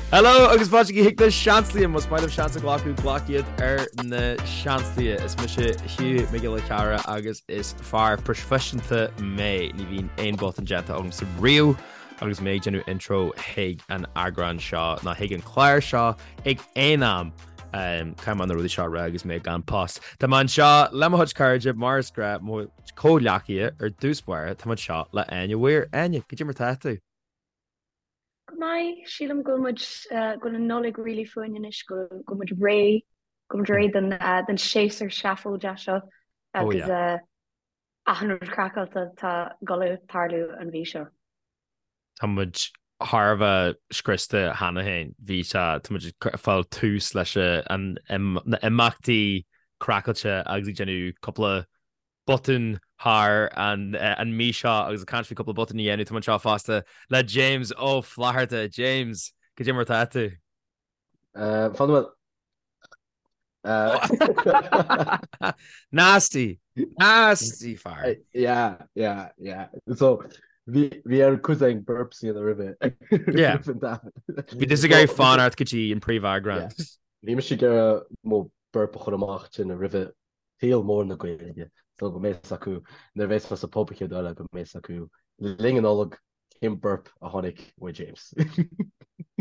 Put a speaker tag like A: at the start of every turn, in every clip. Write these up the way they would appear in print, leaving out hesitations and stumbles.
A: Hello agus fáilte chuig na Seansálaithe, más maith libh seans a ghlacadh, glac iad ar na Seansálaithe. Is mise Hugh Mac Giolla Chearra agus is fear proifisiúnta mé. Ní bhíonn aon botún déanta agamsa riamh agus mé ag déanamh intro chuig an eagrán seo ná chuig an chlár seo ag aon am. Caithfidh mé na rudaí seo a rá agus mé gan post. Tá mé anseo le mo chuid cairde mar is gnách, mo chomhghleacaithe ar dtús báire, tá mé anseo le Áine Weir. Áine, cad é mar tá tú?
B: Go maith, sílim go bhfuil muid, go bhfuil an Nollaig really fúinn anois, go bhfuil muid réidh, go bhfuil muid réidh don don séasúr seafóideach seo agus achan rud craiceáilte atá ag dul a tarlú an mhí seo.
A: Tá muid thar a bheith scriosta cheana féin. Bhí sé, tá muid ag fáil tús leis an na imeachtaí craiceáilte agus ag déanamh cúpla botún thar an mí seo agus ag caint faoi cúpla botún a dhéanamh, tá muid anseo fosta le James Ó Flatharta. James, cad é mar atá tú?
C: Fan bhfuil.
A: Nasty! Nasty fear!
C: Yeah, yeah, yeah. So, bhí bhí ar cuid ag burps a dhéanamh roimhe.
A: Yeah. Bhí tusa ag iarraidh fanacht go dtí an príomheagrán.
C: Bhí mise ag iarraidh mo burp a chur amach tinn roimhe saol mór na Gaeilge so go mbeidh fhios acu nuair a bheas mé sa pub an chéad uair eile go mbeidh fhios acu le linn an Nollag cén burp a tháinig uaidh James.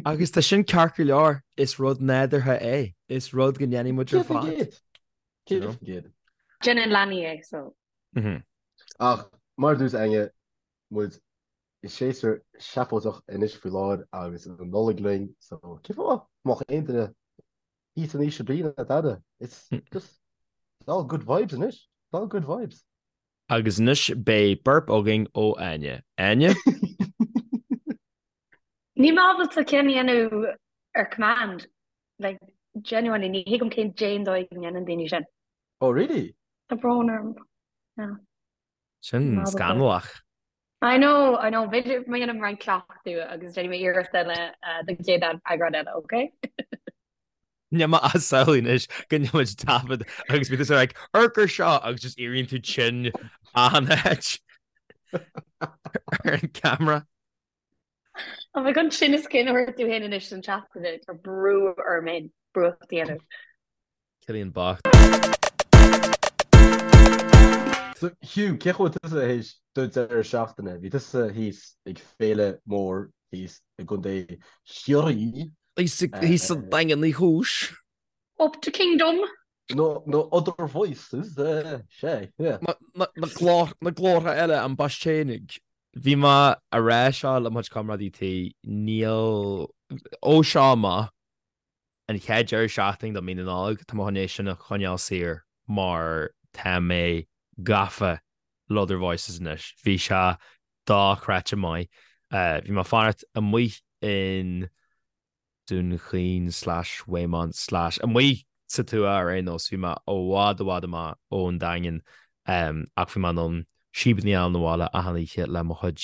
A: Agus tá sin ceart go leor, is rud nádúrtha é, is rud go ndéanfaidh muid ar fad.
C: 100%.
B: Déanann leanaí é so.
C: Ach mar a dúirt Áine, muid i séasúr seafóideach anois faoi láthair agus an Nollaig linn so cén fáth nach mbeadh aon duine Thíos in ísle brí ná dada. It's just, it's all good vibes anois. It's all good vibes.
A: Agus anois beidh burp againn ó Áine. Áine?
B: Níl mé ábalta ceann a dhéanamh ar command. Like, genuinely, ní thuigim cén dé an dóigh go ndéanann daoine sin.
C: Oh really?
B: Tá brón orm. Yeah.
A: Sin scannalach.
B: I know, I know, b'fhéidir má dhéanaim roinnt cleachtadh agus déanfaidh mé iarracht eile don chéad eagrán eile, ok?
A: Níl mé ag samhlú anois go ndéanfaidh muid taifead agus bíonn tusa like, amharc air seo agus just éiríonn tú tinn achan áit ar an camera.
B: Tá mé chun tinneas cinn a thabhairt domh féin anois don tseachtain, tá brú orm féin brúcht a dhéanamh.
A: Cillian bocht.
C: So Hugh, cén chaoi a bhfuil tusa théis do deireadh seachtaine? Bhí tusa thíos ag féile mór thíos i gContae Chiarraí.
A: Thíos sa Daingean Uí Chúis.
B: Up to Kingdom.
C: No, no other voices, sea, yeah.
A: Na glórtha eile, an Baistéanaigh. Bhí mé a rá seo le mo chuid comrádaí tí, níl, ó seo amach, an chéad deireadh seachtaine de mí na Nollag, tá mé chun é sin a choinneáil saor mar tá mé gafa le Other Voices anois. Bhí sé dochreidte maith. Bhí mé ag fanacht amuigh in Dún Chaoin slash Waymount slash amuigh sa tuath ar aon nós. Bhí mé i bhfad i bhfad amach ón Daingean ach bhí mé in ann síobanna a fháil 'na bhaile achan oíche le mo chuid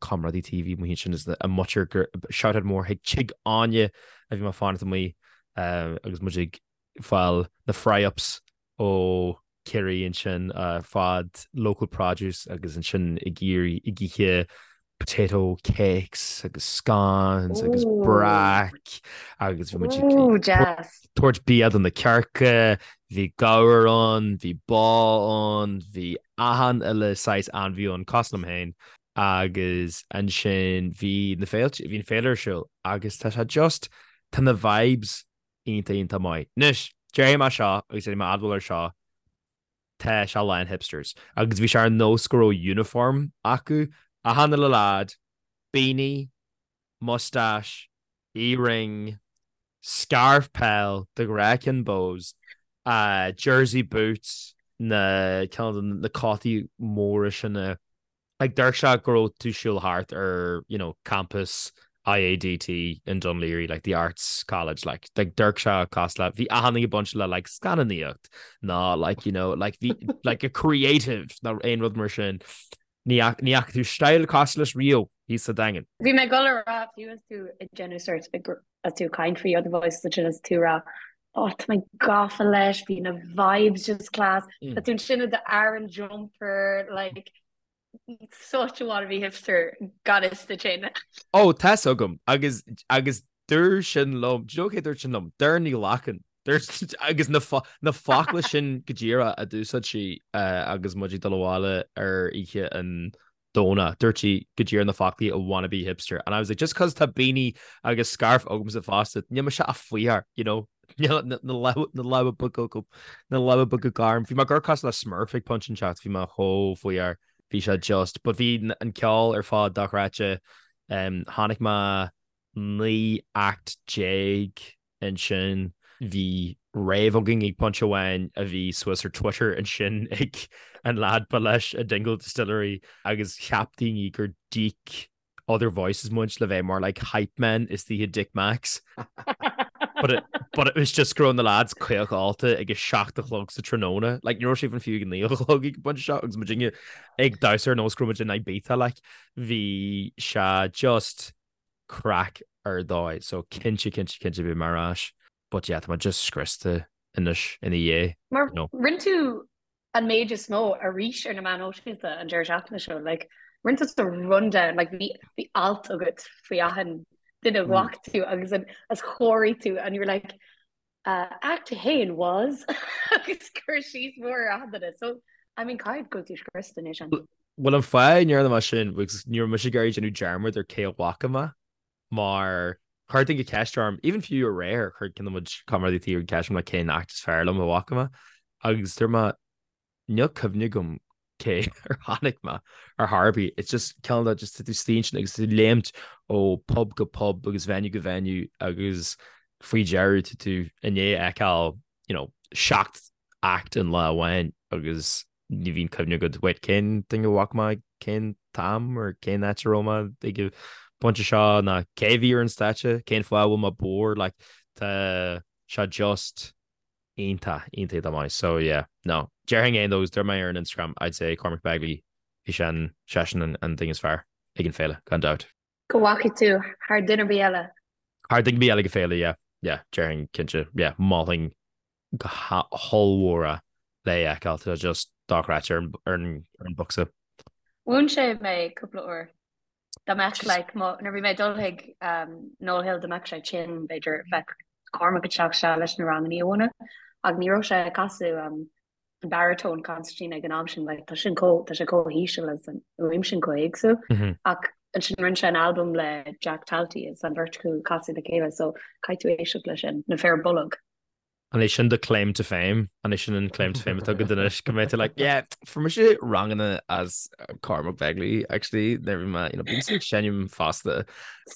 A: comrádaí tí a bhí amuigh ansin is a muintir shout out mór chuig Tigh Áine a bhí mé ag fanacht amuigh agus muid ag fáil na fry-ups ó Ciarraí ansin fad local produce agus ansin ag iarraidh ag ithe potato cakes agus scones agus brack agus bhí muid ag tabhairt bia do na cearca, bhí gabhar ann, bhí bá ann, bhí achan uile saghas ainmhí ann, cosúil liom féin agus ansin bhí na féilte, bhí an féile ar siúl agus tá sé just, tá na vibes iontach iontach maith. Anois, déarfaidh mé seo agus déanfaidh mé admháil ar seo, tá sé lán hipsters. Agus bhí sé ar nós go raibh uniform acu, achan uile lad, beanie, moustache, earring, scarf peil, de ghnáth ceann Bohs, jersey boots, na ceann de na cótaí móra sin a Like d'amharc sé go raibh tú siúl thart ar you know campus IADT in Dún Laoghaire like the arts college like like d'amharc sé cosúil le bhí achan duine ag baint le like scannánaíocht ná like you know like bhí like a creative ná aon rud mar sin. Ní ní fhaca tú style cosúil leis riamh thíos sa Daingean.
B: Bhí mé ag dul a rá fiú is tú ag déanamh sort as tú ag caint faoi Other Voices ansin is tú ag rá oh tá mé gafa leis, bhí na vibes just class, tá tú ansin i do Aran jumper like such a wannabe hipster gan fhios duit féin.
A: Oh tá's agam agus agus. Dúirt sin liom, do you know cé dúirt sin liom? Doireann Ní Ghlacáin. Dúirt agus na na focla sin go díreach a d'úsáid sí agus muid ag dul abhaile ar oíche an Domhnaigh. Dúirt sí go díreach na foclaí a wannabe hipster. And I was like, just cos tá beanie agus scarf agamsa fosta, níl mise ach faoitheoir, you know? Níl na lámha beaga agam, na lámha beaga gorm. Bhí mé ag amharc cosúil le Smurf ag pointe inteacht, bhí mé chomh faoitheoir. Bhí sé just, but bhí an ceol ar fad dochreidte. Chonaic mé 19 act ansin. Bhí rave againn ag pointe amháin a bhí suas ar Twitter ansin ag an lad ba leis an Dingle Distillery agus cheap daoine gur d'íoc Other Voices muid le bheith mar like hype men istigh i Dick Mack's. But it, but it was just go raibh na lads caoch ólta ag a 7 a chlog sa tráthnóna. Like ní raibh sé even fiú ag a 9 a chlog ag an bpointe seo agus muidinne ag damhsa ar nós go raibh muid in Ibiza like bhí sé just craic ar dóigh so cinnte cinnte cinnte beidh mé ar ais but yeah tá mé just scriosta anois ina dhiaidh
B: Mar you know. rinne tú an méid is mó arís ar na meáin shóisialta an deireadh seachtaine seo like rinne tú rundown like bhí bhí alt agat faoi achan duine a bhfaca tú agus an as chóirigh tú and you were like uh, act 1 was agus cur síos mór ar achan duine so I mean caithfidh go bhfuil tú scriosta anois an
A: Bhuel an fáth a ndearna mé sin because ní raibh mise ag iarraidh déanamh dearmad ar cé a bhfaca mé mar chuir duine ceist orm even fiú aréir chuir ceann de mo chuid comrádaí tí ceist orm like cén act is fearr liom a bhfaca mé agus dúirt mé Níl cuimhne agam cé ar chonaic mé ar chor ar bith. It's just cineál de just tú istigh ansin agus tú ag léimt ó pub go pub agus venue go venue agus faoi dheireadh tá tú i ndiaidh a fheiceáil you know, 7 act in lá amháin agus ní bhíonn cuimhne agat wait cén duine a bhfaca mé cén t-am or cén áit a raibh mé ag an bpointe seo ná cé a bhí ar an stáitse, cén fáth a bhfuil mé bodhar like tá sé just iontach, iontach iontach maith. So yeah, no. Déarfainn é though, dúirt mé ar an Instagram, I'd say Cormac Begley, bhí sé an, seisean an, an duine is fearr ag an féile, gan dabht.
B: Go bhfaca tú thar duine ar bith eile?
A: Thar duine ar bith eile ag an féile, yeah, yeah, déarfainn cinnte, yeah, mholfainn go hollmhór é le é a fheiceáil, tá sé just dochreidte ar an, ar an, ar an bocsa.
B: Mhúin sé mé cúpla uair. Dá mbeadh like mo nuair a bhí mé ag dul chuig um, Noel Hill dá mbeadh sé tinn b'fhéidir bheadh Cormac ag teacht isteach leis na ranganna a mhúineadh ach ní raibh sé ag casadh um, an baritone concertina ag an am sin like, tá sin chomh tá sé chomh híseal agus an fhuaim sin chomh héagsúil mm -hmm. ach ansin rinne sé an albam le Jack Talty is an bheirt acu ag casadh le chéile so caithfidh tú éisteacht leis sin na fir bolg.
A: An é sin do claim to fame? An é sin an claim to fame atá agat anois go mbeidh tú like, yeah, fuair mise ranganna as Cormac Begley, actually, nuair a bhí mé, you know, bímse ag seinm fosta.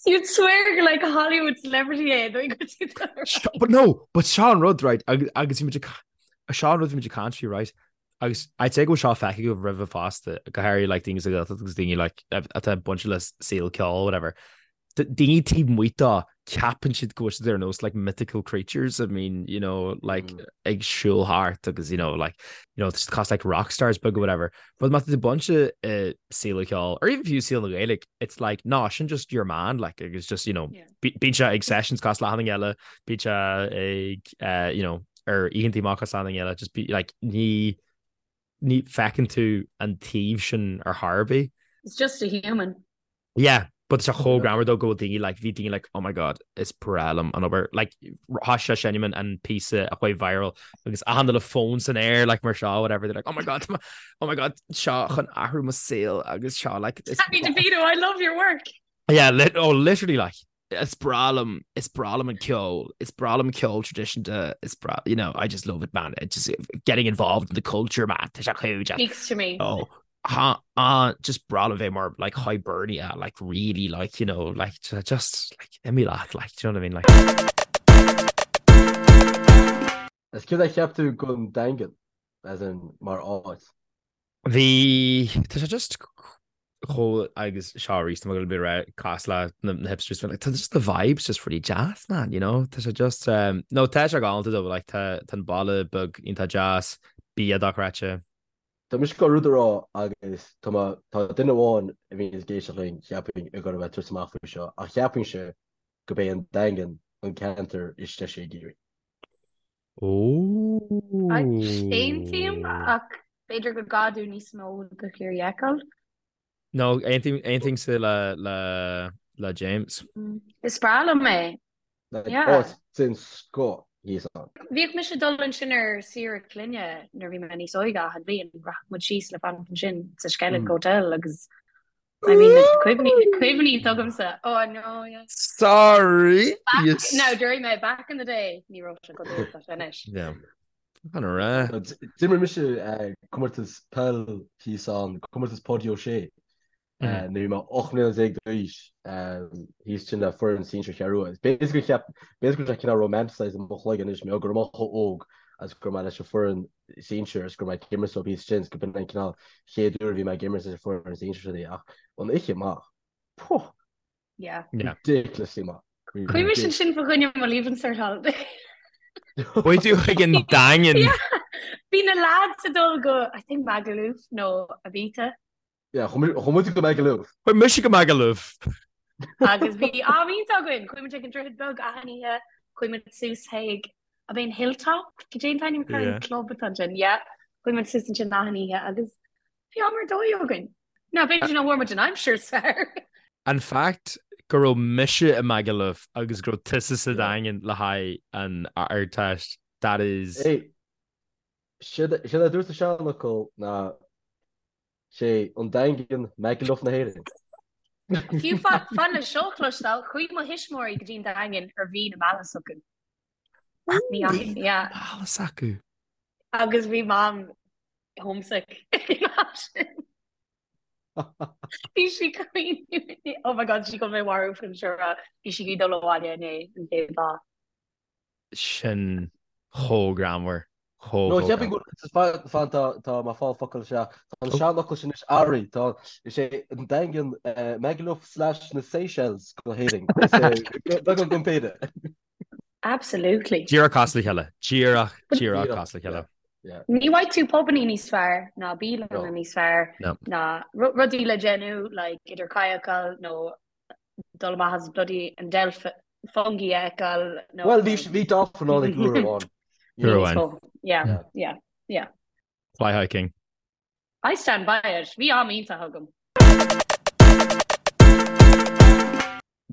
B: You'd swear gur like a Hollywood celebrity é, dóigh go dtí
A: do But no, but seo an rud, right, agus agus bhí muid ag seo an rud bhí muid ag caint faoi, right, agus I'd say go bhfuil seo feicthe agaibh roimhe fosta, go háirithe like daoine sa Ghaeltacht agus daoine like atá bainte le saol ceoil, whatever. daoine taobh amuigh dó, ceapann siad go bhfuil siad ar nós like mythical creatures, I mean, you know, like mm. ag siúl thart agus you know, like, you know, just cosúil like rock stars beaga whatever. But má tá tú bainte i saol an cheoil, or even fiú saol na Gaeilge, it's like, no, sin just your man, like, it's just, you know, yeah. bíonn sé ag sessions cosúil le achan duine eile, bíonn sé ag, uh, you know, ar oícheanta amach cosúil le achan duine eile, just be, like, ní, ní feiceann tú an taobh sin ar chor ar bith.
B: It's just a human.
A: Yeah, but tá sé chomh greannmhar though go bhfuil daoine like, bhí daoine like, oh my god, is breá liom an obair. Like, thosaigh sé seinm an píosa a chuaigh viral agus achan duine le fón san aer like mar seo, whatever, they're like, oh my god, oh my god, seo chun athrú mo saol agus seo like.
B: Danny DeVito, I love your work.
A: Yeah, lit oh, literally like, is breá liom, is breá liom an ceol, is breá liom ceol traidisiúnta, is breá, you know, I just love it, man. It just getting involved in the culture, man. Tá sé chomh
B: Speaks to me.
A: Oh, ha, ah, just breá liom bheith mar like Hibernia, like really like, you know, like just like imigh leat, like, do you know what I mean? Like
C: Is céard a cheap tú den Daingean, as in mar áit?
A: Bhí, tá sé just chomh agus seo arís tá mé ag dul a bheith cosúil le na hipsters like tá just the vibes just really deas man, you know? Tá sé just um, no tá sé galánta though, like tá tá an baile beag iontach deas, bia dochreidte.
C: Tá mise ag gabháil rud a rá agus tá mé tá duine amháin a bhíonn ag éisteacht linn cheapfainn ag gabháil a bheith ag tabhairt amach faoi seo ach cheapfainnse gurb é an Daingean an ceantar is deise i gCiarraí.
B: Aontaím ach b'fhéidir go gcaithfidh tú níos mó de Chiarraí a fheiceáil.
A: No, aontaímse le le le James.
B: Is breá liom é.
C: Like, áit den scoth thíos
B: ann. Bhíodh mise ag dul ansin ar saoire clainne nuair a bhí mé níos óige achan bhliain, rachadh muid síos le fanacht ansin sa Skellig Hotel agus I mean na cuimhní, na cuimhní atá agamsa. Oh no, yeah.
A: Sorry!
B: Back, yes. No, during my back in the day, ní raibh sé chomh dona is atá sé anois.
A: Yeah. An ra.
C: D'imir mise eh, comórtas peil thíos ann, comórtas Páidí Ó Sé. Nuair a bhí mé 18 mbliana d'aois, thíos ansin le foireann sinsir Cheathrú Rua. B'fhéidir gur cheap, b'fhéidir go raibh sé cineál romanticized i mo chloigeann anois, mar go raibh mé chomh óg agus go raibh mé leis an foireann sinsir agus go raibh mé ag imirt leo thíos ansin, go b'in an cineál chéad uair a bhí mé ag imirt leis an foireann sinsir sin ach an oíche amach, puh!
B: Yeah.
C: Ridiculously maith.
B: Chuaigh mise ansin fá choinne mo Leaving Cert holiday.
A: Chuaigh tú chuig an Daingean.
B: Yeah. Bhí na lads ag dul go, I think Magaluf nó Ibiza.
C: Yeah, chuaigh muid go Magaluf.
A: Chuaigh mise go Magaluf.
B: Agus bhí am iontach againn, chuaigh muid ag an Droichead Beag achan oíche, chuaigh muid suas chuig, ab é an Hilltop? Cad é an t-ainm atá ar an club atá ansin? Yeah, chuaigh muid suas ansin achan oíche agus bhí am ar dóigh againn. Now, b'fhéidir nach bhfuair muid an aimsir is fearr.
A: An fact go raibh mise i Magaluf agus go raibh tusa sa Daingean le haghaidh an Ardteist, that is.
C: Hey, séard a dúirt an seanfhocal ná Sé an Daingean Magaluf na hÉireann.
B: Fiú fan le seo a chloisteáil, chuaigh mo thuismitheoirí go dtí an Daingean ar mhí na meala s'acu.
A: Mí na meala s'acu.
B: Agus bhí Mam homesick ag an am sin. Bhí sí caoineadh. Oh my God, sí chun mé a mharú faoin seo. Bhí sí ag dul abhaile inné an chéad lá.
A: sin chomh greannmhar, chomh
C: No, cheapfainn go bhfuil, fan, tá, tá mé ag fáil focal isteach. Tá an seanfhocal sin anois athraithe, tá, is é an Daingean Magaluf slash na Seychelles go hÉirinn. Is é, beagán den péire.
B: Absolutely.
A: Díreach cosúil le chéile. Díreach, díreach cosúil le chéile.
B: Ní bhfaighidh tú pubannaí níos fearr ná bialanna níos fearr ná rudaí le déanamh like idir kayakáil nó dul amach as bloody an delph fungi a fheiceáil
C: nó. Bhuel, bhí bhí dolphin ann ag uair amháin.
A: Uair amháin.
B: Yeah, yeah, yeah.
A: Fly hiking.
B: I stand by it. Bhí am iontach agam.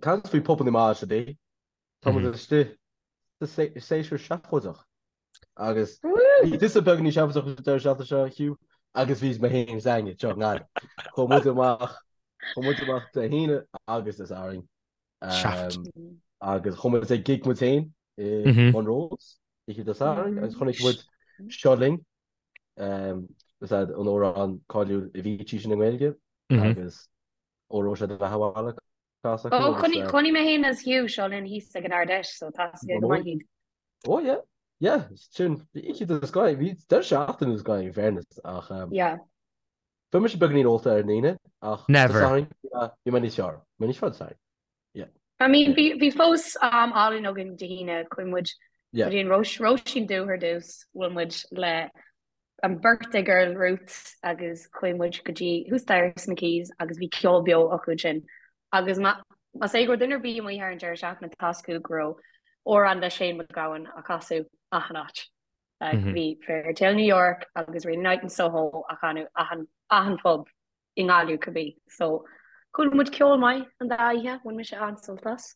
C: Caint faoi pubanna maithe today. Tá muid istigh sa séasúr seafóideach. Agus bhí tusa beagáinín seafóideach an deireadh seachtaine seo, Hugh, agus bhí mé féin is Áine anseo i nGaillimh. Chuaigh muid amach, chuaigh muid amach Dé hAoine agus Dé Sathairn.
A: Seaft.
C: Agus chuaigh muid ag gig muid féin i Monroe's oíche Dé Sathairn agus chonaic muid Seo Linn, is é an amhrán cáiliúil Avicii sin i nGaeilge agus ó raibh sé do bheatha abhaile.
B: Ó, chonaic mé féin is Hugh Seo Linn thíos ag an Ard Fheis, so tá a fhios aige go maith iad.
C: Ó, yeah, yeah, sin, bhí oíche den scoth, bhí deireadh seachtaine den scoth in fairness, ach
B: Yeah.
C: bhí mise beagáinín ólta ar an Aoine, ach
A: Never.
C: Dé Sathairn, bhí mé níos fearr, bhí mé níos fearr Dé Sathairn, yeah.
B: I mean, bhí, bhí fós am álainn againn Dé hAoine, chuaigh muid
C: Yeah.
B: go dtí an Róis, Róisín Dubh ar dtús, bhuail muid le an birthday girl Ruth agus chuaigh muid go dtí thuas staighre sna Quays agus bhí ceol beo acu ansin agus más é go raibh duine ar bith amuigh thar an deireadh seachtaine tá a fhios acu go raibh amhrán le Shane MacGowan á chasadh achan áit. Like, bhí Fairytale New York agus Rainy Night in Soho á chanadh achan, achan phub i nGaillimh cibé. So chuala muid ceol maith an dá oíche, bhain mise an-sult as.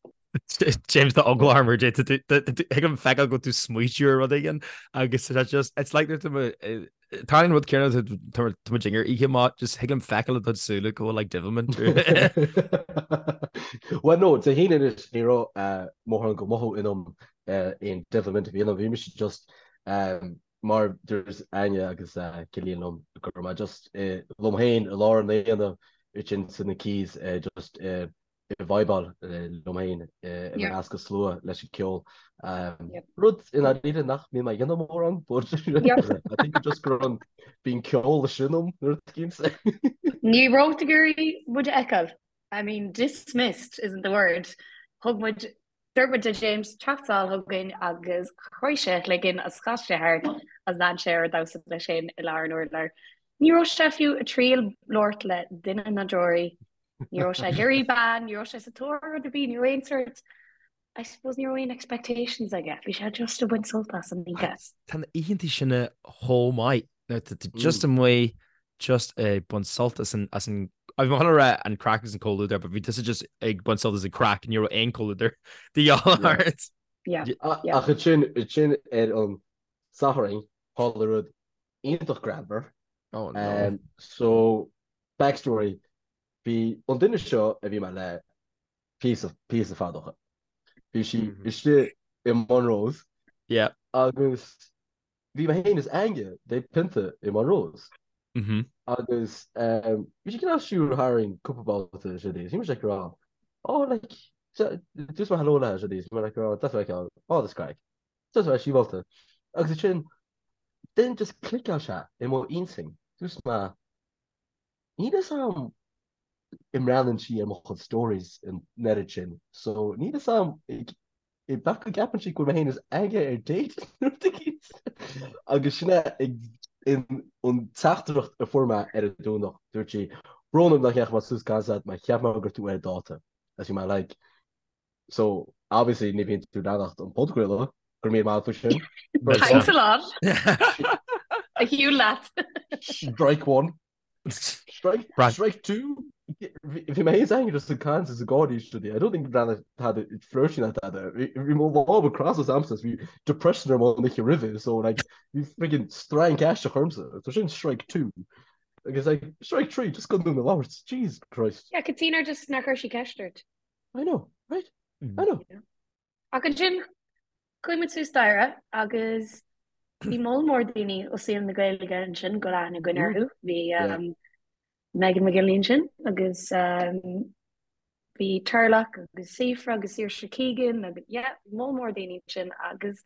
A: James tá eagla orm ar thig liom feiceáil go bhfuil tú ag smaoitiú ar rud éigin agus tá just it's like tá an rud céanna tá muid ar oíche maith just thig liom feiceáil i do súile go bhfuil like devilment.
C: Well no, Dé hAoine anois ní raibh mórán de mhothú ionam aon devilment a bhí ionam, bhí mise just Mar a dúirt Áine agus Cillian liom go raibh mé just liom féin i lár an aonaigh ansin sna Quays just ag vibeáil liom féin i measc an slua leis an ceol. Rud i ndáiríre nach mbíonn mé ag déanamh mórán but I think just go raibh an bíonn ceol sin ionam nuair a bhímse.
B: Ní raibh tú ag iarraidh muid a fheiceáil. I mean dismissed isn't the word. Thug muid Dúirt muid le James teacht sall chugainn agus chroith sé a chloigeann agus chas sé thart agus lean sé air ag damhsa leis féin i lár an urláir. Ní raibh sé fiú ag triail labhairt le duine ná deoraí. Ní raibh sé ag iarraidh bean, ní raibh sé sa tóir ar rud ar bith, ní raibh aon sort, I suppose ní raibh aon expectations aige, bhí sé just ag baint sult as an oíche.
A: Tá na oícheanta sin chomh maith. Nuair tá tú just amuigh. Just ag baint sult as an, as an, bhí mé chun a rá an craic agus an comhluadar, but bhí tusa just ag baint sult as an craic, ní raibh aon comhluadar de dhíobháil ort.
B: Yeah, yeah.
C: Ach ansin, ansin ar an Satharn, tharla rud iontach greannmhar.
A: Oh no.
C: So, backstory, bhí an duine seo a bhí mé le píosa, píosa fada ó shin. Bhí sí istigh i Monroe's.
A: Yeah.
C: Agus bhí mé féin is Aine ag ól pionta i Monroe's. Agus bhí sí cineál siúl tharainn cúpla babhta is rudaí. Bhí mise ag rá, oh like, dúirt mé hello léi is rudaí. Bhí mé like, oh, deas feiceáil, oh that's craic. Deas bheith síobálta. Agus ansin, then just cliceáil sé i mo intinn. Dúirt mé, níl fhios a'm an mbreathnaíonn sí ar mo chuid stories an oiread sin. So níl fhios a'm B'fhéidir go gceapann sí go bhfuil mé féin is Aine ar date nó rud éicint. Agus sin é an teachtaireacht a fuair mé ar an Domhnach. Dúirt sí, Brón orm nach ndeachaigh mé suas gan stad mar cheap mé go raibh tú ar dáta. Agus bhí mé like, so obviously ní bhíonn tú ag leanacht an podchraoladh, go raibh míle maith agat faoi sin.
B: Thanks a lot. A shiúl leat.
C: Strike one. Strike, strike 2 Bhí mé féin is Aine just ag caint is ag gáirí is rudaí. I don't think rinne tada flirty ná tada. Bhí mo lámha crosta agamsa bhí depression orm an oíche roimhe so like bhí friggin strainc aisteach ormsa. So sin strike 2. Agus like strike 3 just gan dúinn a labhairt. Jesus Christ.
B: Yeah, cad tuige just nár chuir sí ceist ort.
C: I know, right? I know.
B: Yeah. Ach ansin, chuaigh muid suas staighre agus bhí moll mór daoine ó saol na Gaeilge ansin, go bhfuil aithne againn orthu. Bhí Megan McGinley ansin agus bhí Turlough agus Síofra agus Saoirse Keegan agus yeah, moll mór daoine ansin agus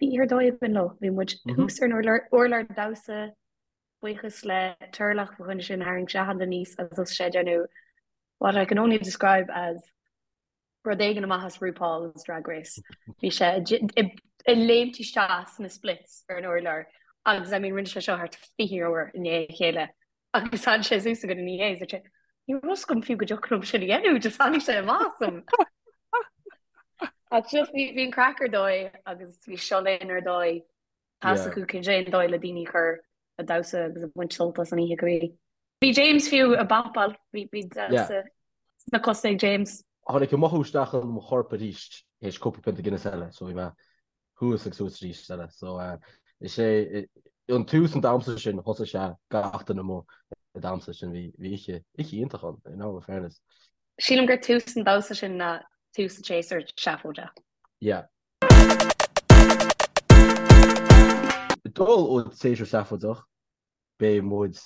B: bhí oíche ar dóigh againn leo. Bhí muid thuas ar an urlár damhsa, buíochas le Turlough fá choinne sin, tharraing sé achan duine aníos agus thosaigh sé ag déanamh what I can only describe as rud éigin amach as RuPaul's Drag Race. Bhí sé ag léimt isteach sna splits ar an urlár agus I mean rinne sé seo thart 20 uair i ndiaidh a chéile agus tháinig sé suas chugainn ina dhiaidh is dúirt sé ní raibh fhios agam fiú go dtiocfadh liom sin a dhéanamh, just tháinig sé amach asam. Ach just bhí an craic ar dóigh agus bhí Seo Linn ar dóigh. Tá fhios acu cén dóigh le daoine a chur ag damhsa agus ag baint sult as an oíche go bhí. Bhí James fiú ag bopáil, bhí damhsa sna cosa ag James.
C: Tháinig an mothú isteach in mo chorp arís théis cúpla pionta Guinness eile so bhí mé thuas agus suas arís eile. So is é an tús an damhsa sin thosaigh sé gach duine amuigh ag damhsa sin bhí bhí oíche oíche iontach ann in all fairness.
B: Sílim gur tús an damhsa sin ná tús an tséasúir seafóideach.
C: Yeah. Dul ó tséasúr seafóideach, beidh muid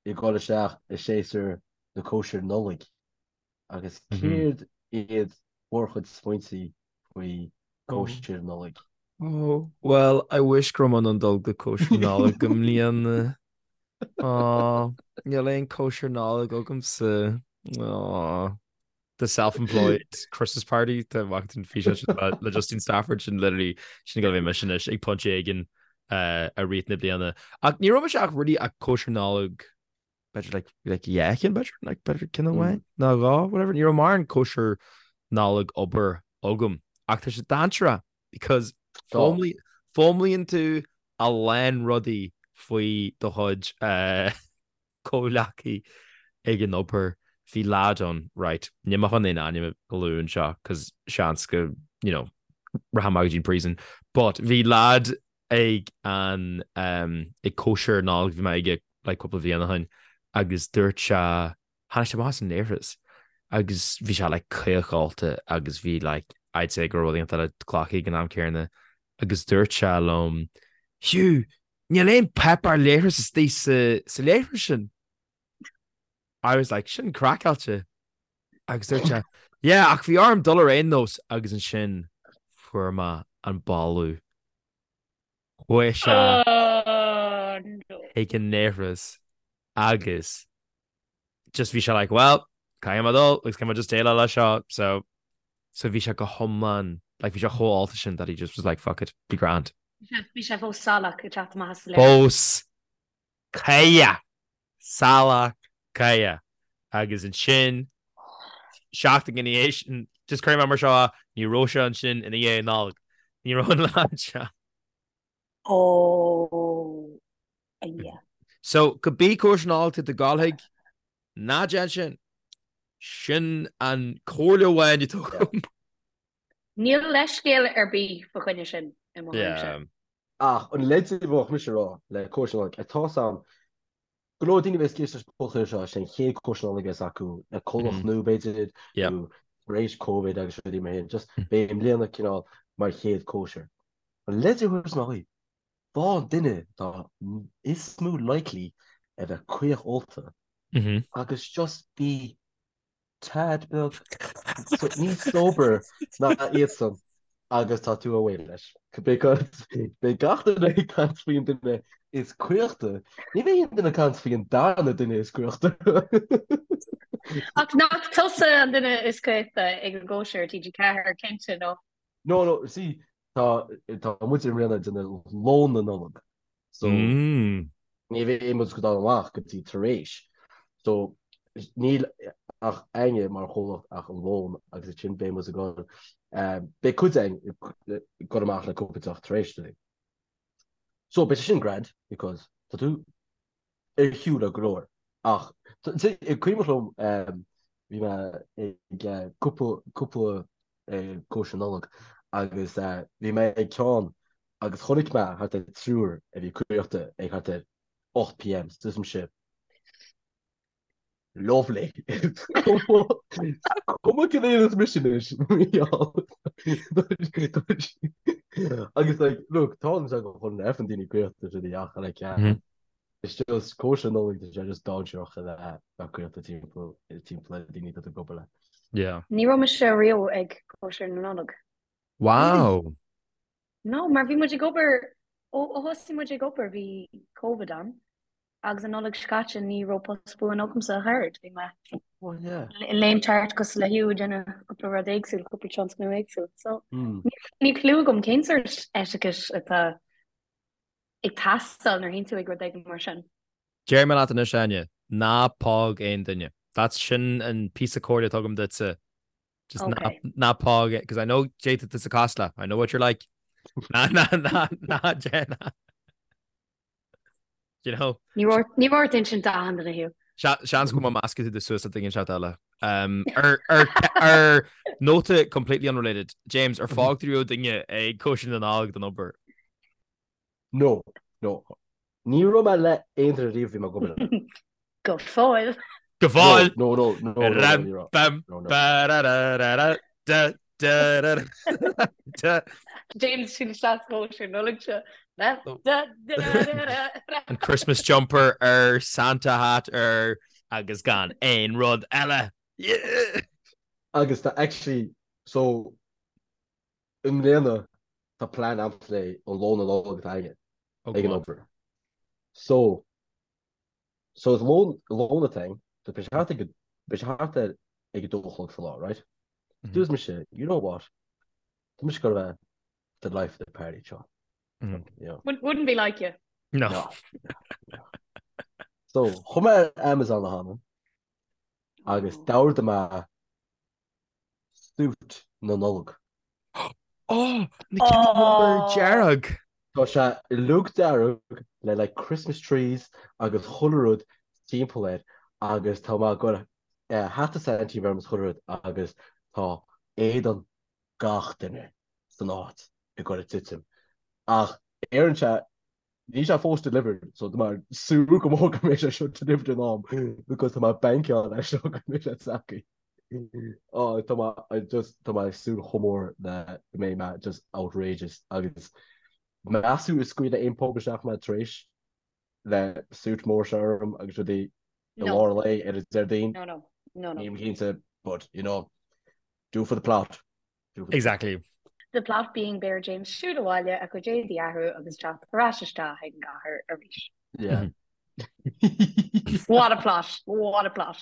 C: ag dul isteach i séasúr na cóisir Nollag. Agus céard iad bhur chuid smaointe faoi cóisir Nollag?
A: Oh, well, I wish go raibh mé in ann dul go cóisir Nollag i mbliana. Aw, níl aon cóisir Nollag agamsa. Aw. The self-employed Christmas party tá amach den físeán sin le Justine Stafford sin literally sin go bhí mise anois ag pointe éigin i rith na bliana. Ach ní raibh mise ach really ag cóisir Nollag b'fhéidir like like yeah cinn b'fhéidir like b'fhéidir ceann amháin nó dhá whatever ní raibh mórán cóisir Nollag obair agam ach tá sé dainséarach because foghlaimíonn tú a lán rudaí faoi do chuid comhghleacaí ag an obair, bhí leaid ann, right, níl mé chun aon ainm a lua anseo cos seans go, you know, rachaidh mé go dtí an prison, but bhí leaid ag an, ag cóisir Nollag a bhí mé aige like cúpla bhliain ó shin agus dúirt sé, tháinig sé amach as an leithreas agus bhí sé like caoch-ólta agus bhí like I'd say go raibh rud éigin eile glactha ag an am céanna agus dúirt sé liom, Hugh, Níl aon páipéar leithris istigh sa leithreas sin. I was like, sin craiceáilte. Agus dúirt sé, yeah, ach bhí orm dul ar aon nós agus ansin fuair mé an boladh. Chuaigh sé chuig an leithreas agus just bhí sé like, well, caithfidh mé dul agus caithfidh mé just déileáil leis seo, so so bhí sé go hiomlán, like bhí sé chomh ólta sin that he just was like, fuck it, be grand.
B: Bhí sé fós salach ag teacht amach as an
A: leithreas. Fós caoch, salach caoch. Agus ansin, seachtain ina dhiaidh sin, just cuirfidh mé mar seo, ní raibh sé ansin ina dhiaidh Nollag. Ní raibh an leaid seo.
B: Oh, yeah.
A: So, cibé cóisir Nollag tá tú ag gabháil chuig, ná déan sin. Sin an comhairle amháin atá agam.
B: Níl leithscéal ar bith fa choinne sin i mo thuairimse.
C: Ach an leid a bheadh mise a rá le cóisir Nollag, tá a fhios agam go leor daoine a bheas ag éisteacht leis an podchraoladh seo, sé an chéad cóisir Nollag a bheas acu le comhlacht nua b'fhéidir, nó tar éis Covid agus rudaí mar sin, just beidh i mbliana cineál mar chéad cóisir. An leid a thabharfas mé dhaoibh, faigh an duine atá is mó likely a bheith caoch ólta agus just bí tad beag níos sober ná iadsan agus tá tú away leis. Because beidh gach duine ag caint faoin duine is caochta, ní bheidh aon duine ag caint faoin darna duine is caochta.
B: Ach nach tusa an duine is caochta ag an gcóisir TG4, cinnte, nó?
C: No, no, see, tá tá muid i mbliana ag déanamh lón na Nollag. So ní bheidh muid ag dul amach go dtí tar éis. So níl ach againne mar chomhlacht ach an lón agus ansin beidh muid ag dul beidh cuid againn ag dul amach le cúpla deoch tar éis dúinn. So beidh sé sin grand because tá tú ar shiúl le go leor ach cuimhin liom bhí mé ag cúpla cúpla cóisir Nollag agus bhí mé ag ceann agus chonaic mé thart ar triúr a bhí caochta ag thart ar 8 pm so dúirt mise Lovely. Cuma cén éadan mise anois Agus like look tá an go chun ar an daoine caochta sin ach like it's just cóisir Nollag tá sé just dainséarach a bheith bheith caochta timpeall timpeall le daoine atá tú ag obair le.
A: Yeah.
B: Ní raibh mise riamh ag cóisir na Nollag.
A: Wow.
B: No, mar bhí muid ag obair ó thosaigh muid ag obair bhí Covid ann agus an Nollaig seo caite ní raibh post buan agamsa a chara, bhí mé
C: Oh yeah.
B: ag léimt thart cosúil le Hugh ag déanamh cúpla rud éagsúil, cúpla tionscnamh éagsúil. So níl clue agam cén sórt etiquette atá ag teastáil nuair a théann tú ag rud éigin mar sin.
A: Déarfaidh mé leat anois, Áine, ná póg aon duine. That's sin an píosa comhairle atá agam duitse. Just ná,
B: Okay.
A: ná póg, because I know cad é atá tusa cosúil le. I know what you're like. Ná, ná, ná, ná, déan. You know?
B: Ní raibh ní raibh ort insint d'achan duine Hugh.
A: Seans go mbeidh measctha tú suas le duine inteacht eile. Um, ar, ar, ar nóta completely unrelated, James, ar phóg tú riamh duine ag cóisir na Nollag don obair?
C: No, no. Ní raibh mé le aon duine riamh bhí mé ag obair le.
B: Go fóill.
A: Go fóill!
C: No, no, no, no, no,
A: Ram,
C: ní raibh.
A: bam,
C: No, no.
A: ba, ra, ra, ra, ra, da, da, ra, ra, da.
B: James siúl isteach sa chóisir Nollag seo. Da, da, da, ra, ra, ra.
A: An Christmas jumper air, Santa hat air, agus gan aon rud eile. Yeah!
C: Agus tá actually, so, i mbliana tá plean a'msa le an lón na Nollag atá againne
A: Oh,
C: ag
A: go
C: an
A: on.
C: obair. So, so is lón, lón atá againn, so beidh sé thart ag, beidh sé thart ar ag a dó a chlog sa lá, right?
A: Mhm.
C: Dúirt mise, you know what? Tá mise ag goil a bheith the life of the party seo.
A: Mhm.
C: You know.
B: Wouldn't wouldn't be like you.
A: No.
C: No. No. So, chuaigh mé ar Amazon a hana agus
B: Oh.
C: d'ordaigh mé suit na Nollag.
A: Oh, na cinn rubber dearg.
C: Tá sé uilig dearg le like Christmas trees agus chuile rud timpeall air agus tá mé ag goil hata Santa orm is chuile rud agus tá éadan gach duine san áit ag goil ag titim. Ach ar an sé Níl sé fós delivered so tá mé ag súil go mór go mbeidh sé seo delivered in am because tá mé ag bankáil leis seo go mbeidh sé tagtha. Oh tá mé I just tá mé ag súil chomh mór le go mbeidh mé just outrageous agus meas tú an scaoilfidh aon pub isteach mé tar éis le suit mór seo orm agus rudaí i
B: No.
C: lár an lae ar an Déardaoin?
B: No, no. No, no.
C: Nílim cinnte but you know do for the plot.
A: Exactly.
B: The plot being beidh ar James siúl abhaile a chuid éadaí a athrú agus teacht ar ais isteach ag an gcathair arís.
C: Yeah.
B: What a plot! What a plot!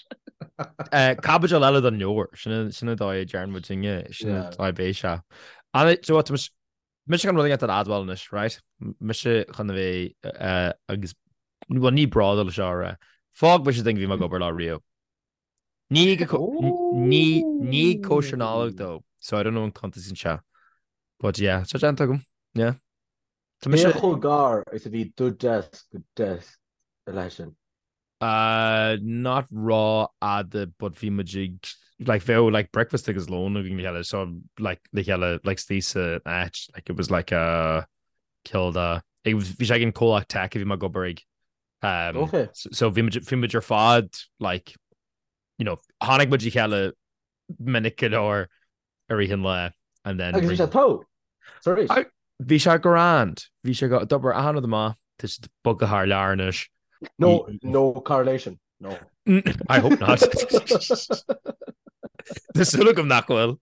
A: Caibidil eile den leabhar, sin sin an dóigh a deireann muid inne, sin an dóigh a bheidh sé. Anna, do you know what, tá mise chun rud éigin a admháil anois, right? Mise chun a bheith agus, well ní bródúil seo a rá. Phóg mise duine a bhí mé ag obair leo riamh. Ní ag ní ní ag cóisir Nollag though, so I don't know an cuntasann sé. But yeah, tá déanta agam. Yeah. Tá mise
C: Cé chomh gar is a bhí do desk go desk. a leithéid sin?
A: Uh, not rófhada but bhí muid ag like bheadh like breakfast agus lón againn le chéile so like le chéile like istigh san áit like it was like a cineál de bhí sé ag an comhlacht tech a bhí mé ag obair ag um,
C: Okay.
A: so, so bhí muid bhí muid ar fad like you know tháinig muid le chéile minic go leor i rith an lae and then
C: Agus bhí sé togha tar éis.
A: Bhí sé grand. Bhí sé go d'obair achan rud amach. Tá siad bogtha thar lear anois.
C: No, no correlation. No.
A: I hope not. Tá súil agam nach bhfuil.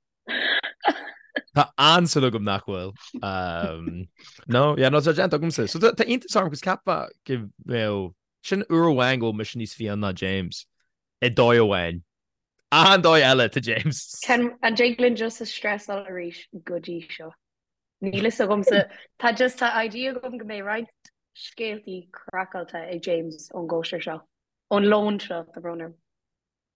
A: Tá an-súil agam nach bhfuil. Um, no, yeah, no, tá déanta agamsa. So tá iontas orm cos cheapfá go mbeadh sin uair amháin go bhfuil mise níos fiáine ná James. I dóigh amháin. Achan dóigh eile tá James.
B: Can an dtig linn just a stressáil arís go dtí seo? Níl fhios agamsa. Tá just tá idea agam go mbeidh roinnt scéaltaí craiceáilte ag James ón gcóisir seo. Ón lón seo, tá brón orm.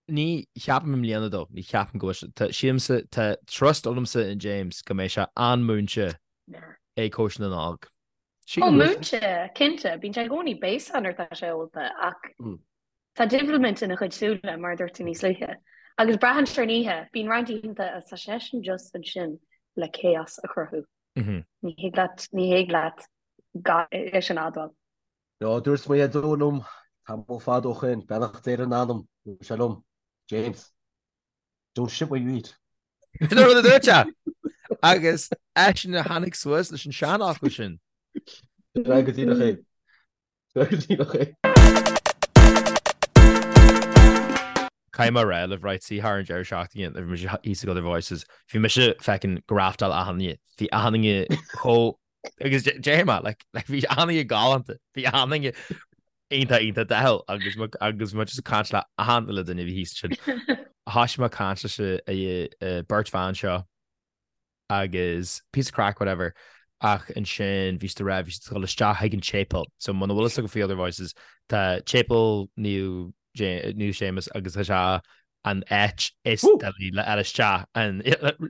A: Ní cheapaim i mbliana though, ní cheapaim go bhfuil sé, tá sílimse, tá trust agamsa in James go mbeidh sé an-múinte ag cóisir na Nollag.
B: Ó múinte, cinnte, bíonn sé i gcónaí béasach nuair atá sé ólta ach Tá diabhalmint ina chuid súile, mar a dúirt tú níos luaithe. Agus braitheann sé ar an oíche. Bíonn roinnt oícheanta agus tá seisean just ansin le chaos a chruthú. Ní thig leat, ní thig leat gan é sin a admháil.
C: No, dúirt mo dhaideo liom tamall fada ó shin, beannacht Dé lena anam, dúirt sé liom, James, don't shit where you eat.
A: Sin an rud a dúirt sé! Agus eisean a tháinig suas leis an seanfhocal sin.
C: Sin é go díreach é.
A: Caithfidh mé a rá libh, right, see thar an deireadh seachtaine bhí mise thíos ag Other Voices, bhí mise feckin' graftáil achan duine, bhí achan duine chomh, agus déarfaidh mé, like, like bhí achan duine galánta, bhí achan duine iontach iontach dathúil agus agus mé just ag caint le achan uile duine a bhí thíos ansin. Thoisigh mé ag caint leis an beirt bhan seo agus píosa craic whatever ach ansin bhí siad ag rá bhí siad ag dul isteach chuig an tséipéal so muna bhfuil fhios agaibh faoi Other Voices tá séipéal Naomh Naomh Séamus agus tá sé an áit is doiligh le fháil isteach an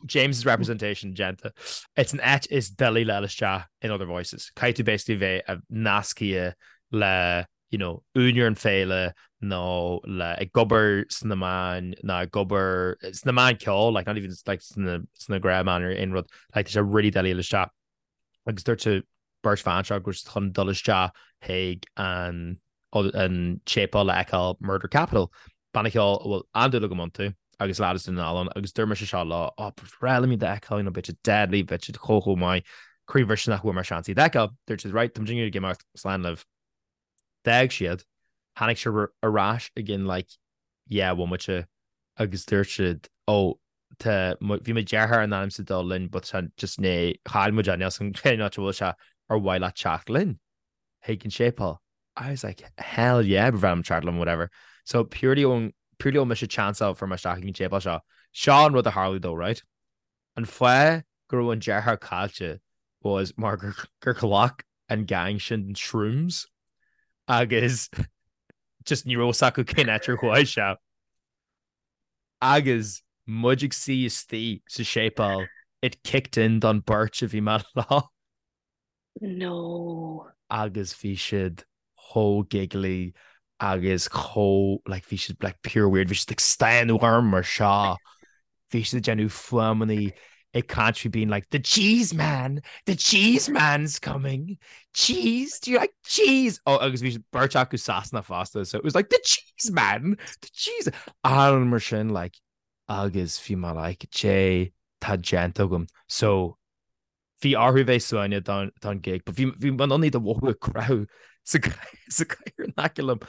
A: James's representation déanta it's an áit is doiligh le fháil isteach in Other Voices caithfidh tú basically bheith nasctha le you know, úinéir an féile nó le ag obair sna meáin ná ag obair sna meáin ceoil, like not even like sna sna gnáthmheáin or aon rud, like tá sé really doiligh a fháil isteach. Agus dúirt an bheirt bhan seo go raibh siad chun dul isteach chuig an an tséipéal le fheiceáil Murder Capital, banna ceoil a bhfuil an-dúil agam iontu agus leaid as Dún na nGall ann agus dúirt mise seo leo, oh, ba bhreá liom iad a fheiceáil, you know, beidh siad deadly, beidh siad chomh chomh maith, croíbhriseadh nach bhfuair mé seans iad a fheiceáil. Dúirt siad, right, tá muid ag imeacht, slán libh. D'fhág siad. Tháinig siad ar ais i gcionn like 10 bhomaite agus dúirt siad oh tá bhí mo dheartháir in ainm 's a dul linn but tá just né chaill muid é níl 's agam cén áit a bhfuil sé ar mhaith leat teacht linn chuig an séipéal. I was like hell yeah ba bhreá liom teacht liom whatever. So purely ón purely ó mise chance a fuair mé isteach chuig an tséipéal seo. Seo an rud a tharla though right? An fáth go raibh an deartháir caillte was mar gur ghlac an gang sin shrooms agus just ní raibh fhios acu cén áit ar chuaigh sé. Agus muid ag suí istigh sa séipéal, it kicked in don beirt a bhí mé leo.
B: No.
A: Agus bhí siad chomh giggly agus chomh like bhí siad like pure weird, bhí siad ag stánadh orm mar seo, bhí siad ag déanamh fuaimeanna ag caint faoi being like the cheese man, the cheese man's coming, cheese, do you like cheese? Oh agus bhí beirt acu Sasanach fosta so it was like the cheese man, the cheese an mar sin like agus bhí mé like cad é tá déanta agam so Bhí orthu bheith suaimhneach don don gig but bhí bhí mé in ann iad a mhothú ag croitheadh sa sa gcathaoir in aice liom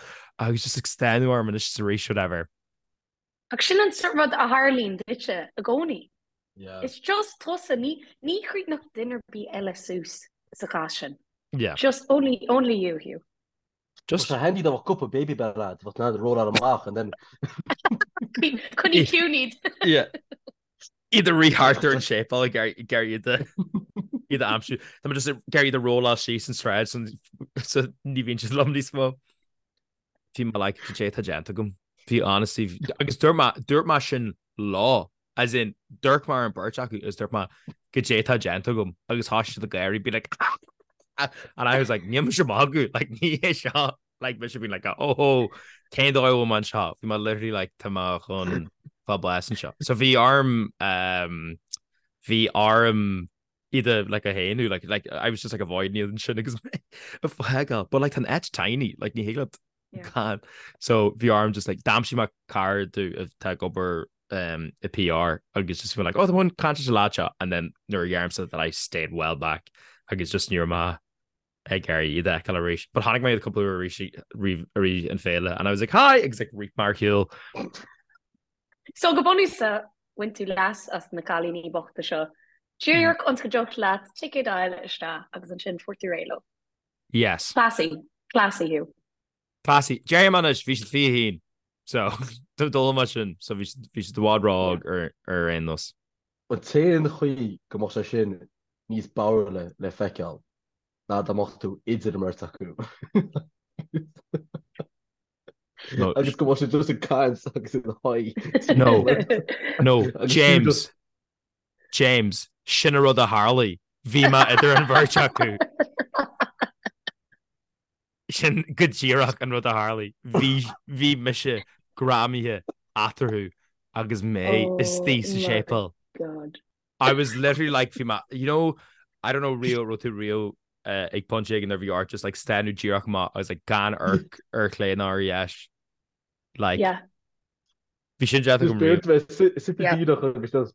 A: agus just ag stánadh orm anois is arís whatever.
B: Ach sin an sort rud a tharlaíonn duitse i gcónaí.
C: Yeah.
B: It's just tusa, ní ní chríochnódh duine ar bith eile suas sa chás sin.
A: Yeah.
B: Just only only you, Hugh.
A: Just.
C: Tá sé handy dá mbeadh cupa Babybel a'd, bheadh tú in ann rolláil amach and then.
B: Coinnigh ciúin iad.
A: Yeah. Iad ag rith thart ar an séipéal ag iarraidh iad a iad a aimsiú. Tá mé just ag iarraidh iad a rolláil síos an sráid so so ní bhíonn siad liom níos mó. Bhí mé like cad é tá déanta agam. Bhí honestly agus dúirt mé dúirt mé sin leo as in d'amharc mé ar an beirt acu agus dúirt mé cad é tá déanta agam agus thosaigh siad ag gáirí be like and I was like níl mise ag magadh like ní hé seo. Like mise been like oh oh cén dóigh a bhfuil mé anseo? Bhí mé literally like tá mé chun fáil bás anseo. So bhí orm um, bhí orm iad a like a shéanadh like like I was just like avoiding iad ansin agus mé ag fágáil. But like tá an áit tiny like ní thig leat gan. So bhí orm just like d'aimsigh mé cara domh atá ag obair um, i PR agus just bhí like oh tá mé chun caint leis an lad seo and then nuair a dheirimse that I stayed well back agus just ní raibh mé ag iarraidh iad a fheiceáil arís. But chonaic mé iad cúpla uair arís i rith an féile and I was like hi agus like rith mé ar shiúl.
B: So go bunúsach bhain tú leas as na cailíní bochta seo. Díreach ionas go dtiocfadh leat ticéad a fháil isteach agus ansin fuair tú réidh leo.
A: Yes.
B: Classy. Classy thú.
A: Classy. Déarfaidh mé anois, bhí siad 21. So, dul mar sin, so bhí siad i bhfad ró-óg ar aon nós.
C: An t-aon chaoi go mbeadh sé sin níos bodhraile le feiceáil ná dá mbeadh tú idir an mbeirt acu. Agus go mbeadh siad just ag caint agus ina haghaidh.
A: No, no, James, James, sin an rud a tharlaigh. Bhí mé idir an bheirt acu. Sin go díreach an rud a tharlaigh. Bhí, bhí mise greamaithe eatarthu agus mé istigh sa séipéal.
B: God.
A: I was literally like, bhí mé, you know, I don't know riamh, raibh tú riamh ag pointe éigin nuair bhí ort just like stánadh díreach amach agus like gan amharc ar chlé ná ar dheis. Like,
B: Yeah.
A: bhí sin déanta agam riamh.
C: Just bheith suite díreach agus just.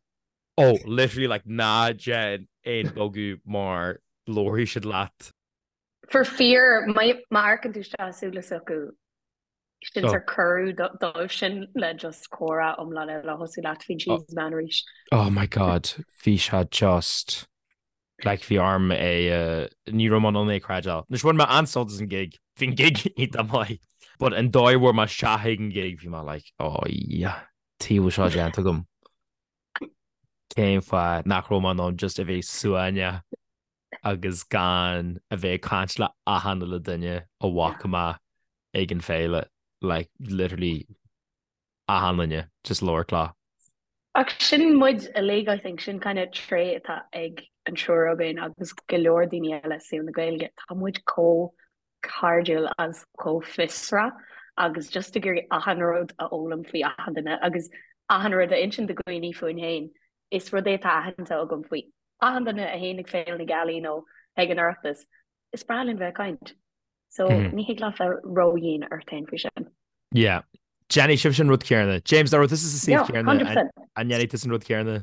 A: Oh, literally like ná déan aon bogadh mar labharfaidh siad leat.
B: For fear, má amharcann tú isteach i súile s'acu, sin sórt cuireadh dóibh sin le just comhrá iomlán eile a thosú leat faoin cheese man arís.
A: Oh my God, bhí sé just like bhí orm é, ní raibh mé in ann é a chreidbheáil. Anois bhain mé an-sult as an gig, bhí an gig iontach maith, but an dóigh a bhfuair mé isteach ag an gig bhí mé like oh yeah, tuige a bhfuil seo déanta agam. Cén fáth nach raibh mé in ann just a bheith suaimhneach agus gan a bheith ag caint le achan uile duine a bhfaca mé ag an féile, like literally achan duine, just labhairt leo.
B: Ach sin muid uilig I think, sin kind of tréith atá ag an triúr againn agus go leor daoine eile i saol na Gaeilge, tá muid chomh cairdiúil agus chomh fiosrach agus just ag iarraidh achan rud a fhoghlaim faoi achan duine agus achan rud a insint do dhaoine fúinn féin. Is rud é atá aitheanta agam faoi achan duine a théann ag Féile na Gealaí nó ag an Oireachtas, is breá linn bheith ag caint. So ní thig leat bheith ródhian ort féin faoi sin.
A: Yeah. Déanfaidh sibhse an rud céanna. James, dá raibh tusa sa suíomh céanna, an ndéanfaidh tusa an rud céanna?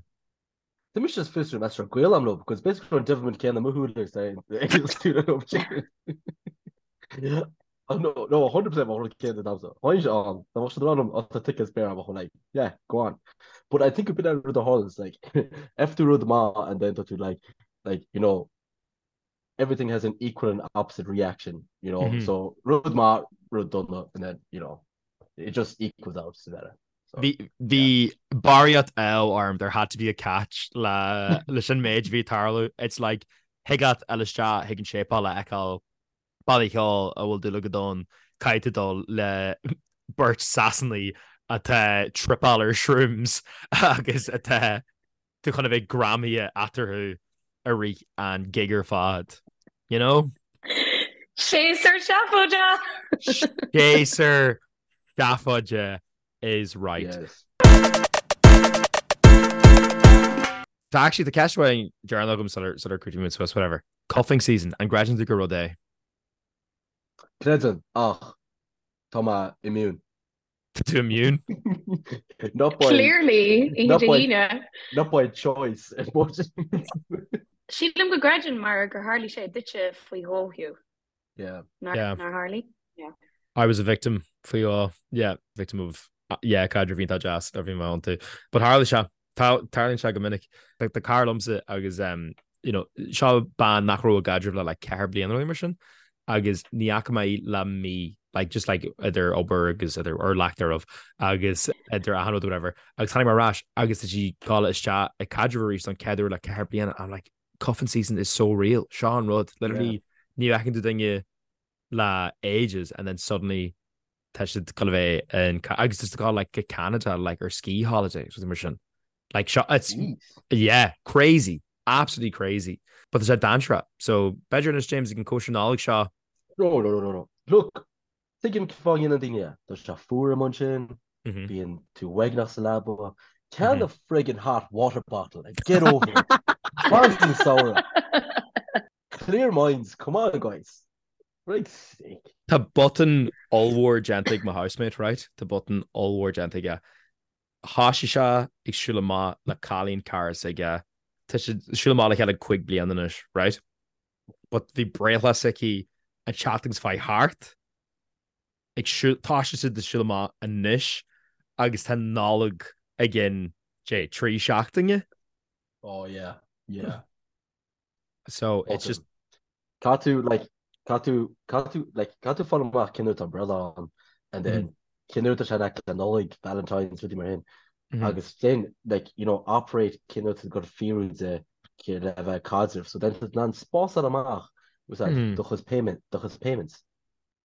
C: Tá mise just fiosrú meas raibh gaol agam leo because basically an devilment céanna mo shúile is é é Oh, no, no, 100% mar rud céanna damsa. Tháinig sé ann, dá mbeadh siad ag rá liom, oh, tá tickets spare agam, bheinn like, yeah, go on. But I think a bit rud a tharla is like, if tú rud maith and then tá tú like, like, you know, everything has an equal and opposite reaction, you know, mm -hmm. so rud maith, rud dona, and then, you know, it just equals out to better.
A: So, Bhí barraíocht ádh orm, there had to be a catch le leis an méid a bhí ag tarlú. It's like, thig leat a dhul isteach chuig an séipéal a fheiceáil banna ceoil a bhfuil dúil agat ann, caithfidh tú dul le beirt Sasanaigh atá ag tripeáil ar shrooms agus atá tú chun a bheith greamaithe eatarthu i rith an gig ar fad. You know?
B: Séasúr seafóide!
A: Séasúr seafóide is right.
C: Yes.
A: Tá actually tá ceist amháin deireanach agam sular sular críochnaímid suas whatever. Cuffing season, an gcreideann tú gur rud é?
C: Creidim, ach tá mé immune.
A: Tá tú immune?
C: Not by
B: Clearly, oíche
C: not
B: Dé
C: by
B: hAoine.
C: not by choice.
B: Sílim go gcreideann mar gur tharlaigh sé duitse faoi dhó, Hugh.
C: Yeah.
B: Nár
A: Yeah.
B: nár tharlaigh? Yeah.
A: I was a victim faoi dhó. Yeah, victim of yeah, caidreamh iontach deas a bhí mé iontu. But tharla sé, tarlaíonn sé go minic. Tá cara liomsa agus um, you know, seo bean nach raibh i gcaidreamh le like 4 bliana nó mar sin agus ní fhaca mé í le mí like just like idir obair agus idir or lack thereof agus idir achan rud whatever agus tháinig mé ar ais agus tá sí ag dul isteach i caidreamh arís don chéad uair le 4 bliana I'm like cuffing season is so real seo an rud literally ní fheiceann tú duine le ages and then suddenly tá siad ag dul a bheith in agus just ag dul like go Canada like ar ski holiday something mar sin like seo it's
C: Jeez.
A: yeah crazy absolutely crazy but tá sé dainséarach so b'fhéidir anois James ag an cóisir Nollag seo
C: No, no, no, no, no. Look. Tuigim cén fáth a ndéanann daoine é. Tá sé fuar amuigh ansin, bíonn tú uaigneach sa leaba. Ceannaigh friggin hot water bottle and get over it. Fan an samhradh. Clear minds, come on guys. Frig sake.
A: Tá botún ollmhór déanta ag mo housemate, right? Tá botún ollmhór déanta aige. Thoisigh sé ag siúl amach le cailín cara s'aige. Tá siad ag siúl amach le chéile 5 bliana anois, right? But bhí breithlá s'aici an tseachtain seo chuaigh thart. Ag siúl, tá siad ag siúl amach anois agus tá Nollaig i gcionn, dé, 3 seachtaine.
C: Oh yeah, yeah.
A: So it's just.
C: Caithfidh tú like caithfidh tú caithfidh tú like caithfidh tú fáil amach cén uair atá an breithlá ann and then cén uair atá sé in aice le Nollaig, Valentine's, rudaí mar sin. Agus then like you know operate cén uair atá tú ag fíorú de le bheith ag caidreamh. So then tá tú in ann spásáil amach do chuid payment do chuid payments.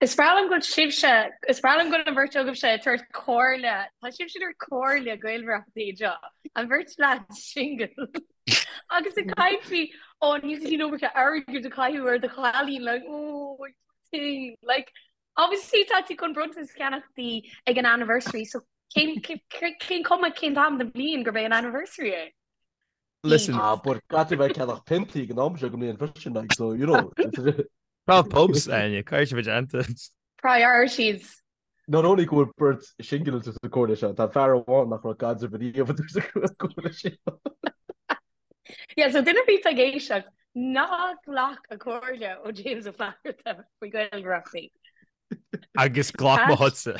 B: Is breá liom go bhfuil sibhse, is breá liom go bhfuil an bheirt agaibhse ag tabhairt comhairle, tá sibhse ag tabhairt comhairle gaolmhaireachta anseo, an bheirt leaid single. Agus ag caint faoi, ó níl tú an iomarca airgid a chaitheamh ar do chailín, like, oh, thing, like, obviously tá tú chun bronntanas a cheannach di ag an anniversary, so cén, cén cuma cén t-am den bhliain gurb é an anniversary é?
A: Listen.
C: Ah, but caithfidh tú bheith ag ceannach piontaí ag an am seo den mbliain freisin, like, so, you know.
A: 12 pubs, Áine, caithfidh sé bheith déanta.
B: Priorities.
C: Not only go bhfuil beirt single sa comhairle seo, tá fear amháin nach raibh caidreamh ariamh sa comhairle seo.
B: Yeah, so duine ar bith atá ag éisteacht, ná glac an comhairle ó James Ó Flatharta faoi ghaolmhaireachtaí.
A: Agus glac mo chuidse.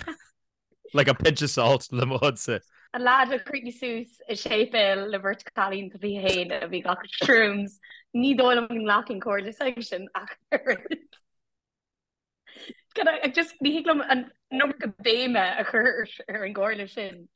A: Like a pinch of salt le mo chuidse.
B: An leaid a chríochnaigh suas i séipéal le beirt chailín atá 21 a bhí ag glacadh shrooms, ní dóigh liom go nglacfainn comhairle s'aigesean ach oiread. Can I just, ní thig liom an iomarca béime a chur ar an gcomhairle sin.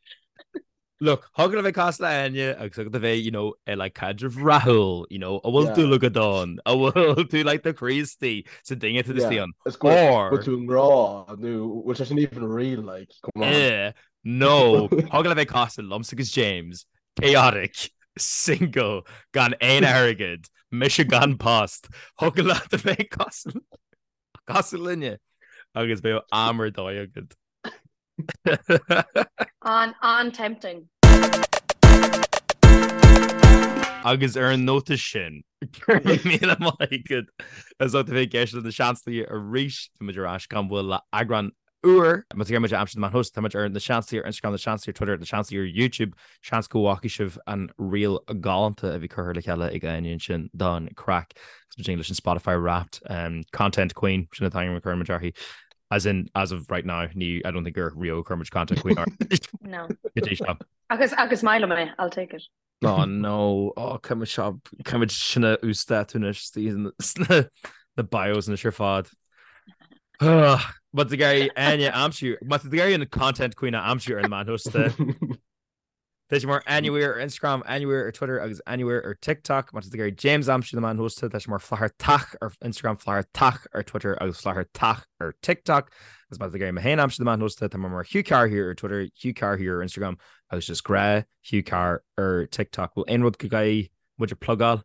A: Look, thig leat a bheith cosúil le Áine agus thig leat a bheith, you know, i like caidreamh rathúil, you know, a bhfuil dúil agat ann, a bhfuil tú like do chroí istigh sa duine atá istigh ann.
C: Is go bhfuil tú i ngrá nó bhfuil sé sin even real like, come on.
A: Eh, nó thig leat a bheith cosúil liomsa agus James, chaotic, single, gan aon airgead, mise gan post, thig leat a bheith cosúil cosúil linne agus beidh am ar dóigh agat.
B: An an-tempting.
A: Agus ar an nóta sin, go raibh míle maith agat as ucht a bheith ag éisteacht le Na Seansálaithe arís. Tá muid ar ais gan mhoill le eagrán úr. Má tá tú ag iarraidh muid a aimsiú ar na meáin shóisialta, tá muid ar Na Seansálaithe ar Instagram, Na Seansálaithe ar Twitter, Na Seansálaithe ar YouTube. Seans go bhfacaidh sibh an reel galánta a bhí curtha le chéile ag Áine ansin don craic. Agus muid leis an Spotify Wrapped Content Queen, sin an t-ainm a chuir muid uirthi. As in, as of right now, ní, I don't think gur riamh a chuir muid content queen uirthi.
B: No.
A: Go dtí seo.
B: Agus, agus maith liom é, I'll take it.
A: Oh no, oh caithfidh muid seo, caithfidh muid sin a uasdátú anois sna na bios anois ar fad. Má tá tú ag iarraidh Áine a aimsiú, má tá tú ag iarraidh an content queen a aimsiú ar na meáin shóisialta. Tá sé mar Áine Weir ar Instagram, Áine Weir ar Twitter agus Áine Weir ar TikTok. Má tá tú ag iarraidh James a aimsiú ar na meáin shóisialta, tá sé mar Flathartach ar Instagram, Flathartach ar Twitter agus Flathartach ar TikTok. Agus má tá tú ag iarraidh mé féin a aimsiú ar na meáin shóisialta, tá mé mar Hugh Carr here ar Twitter, Hugh Carr here ar Instagram agus just gnáth Hugh Carr ar TikTok. Bhfuil aon rud go gcaithfidh muid a plugáil?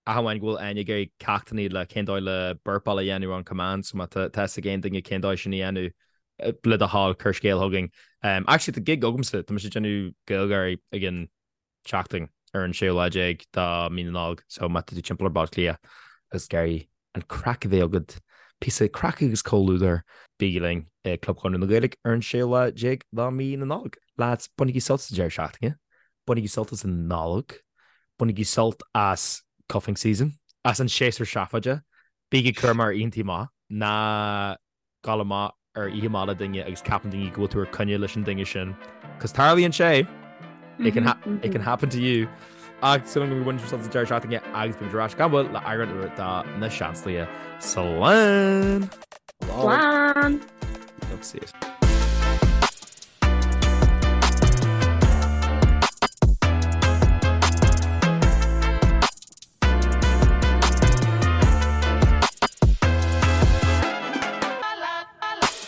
A: Ach amháin go bhfuil Áine ag iarraidh ceachtanna le cén dóigh le burpáil a dhéanamh on command so má tá fhios ag aon duine cén dóigh sin a dhéanamh le do thoil cuir scéal chugainn. Actually tá gig agamsa, tá mise ag déanamh GaelGáirí ag an tseachtain ar an séú lá déag de mí na Nollag so má tá tú timpeall ar Baile Átha Cliath agus ag iarraidh an craic a bheith agat, píosa craic agus comhluadar, bígí linn i Club Chonradh na Gaeilge ar an séú lá déag de mí na Nollag. Lads, bainigí sult as an deireadh seachtaine, bainigí sult as an Nollaig, bainigí sult as cuffing season, as an séasúr seafóide, bígí cúramach ar oícheantaí amach, ná gabh amach ar oíche amach le duine agus ceapann daoine go bhfuil tú ar coinne leis an duine sin. Cos tarlaíonn sé! It can, ha it can happen to you. Ach súil agam go bhfuil sult as an deireadh seachtaine agus beimid ar ais gan mhoill le eagrán úr de Na Seansálaithe. Slán!
B: Slán!
A: Love to see it.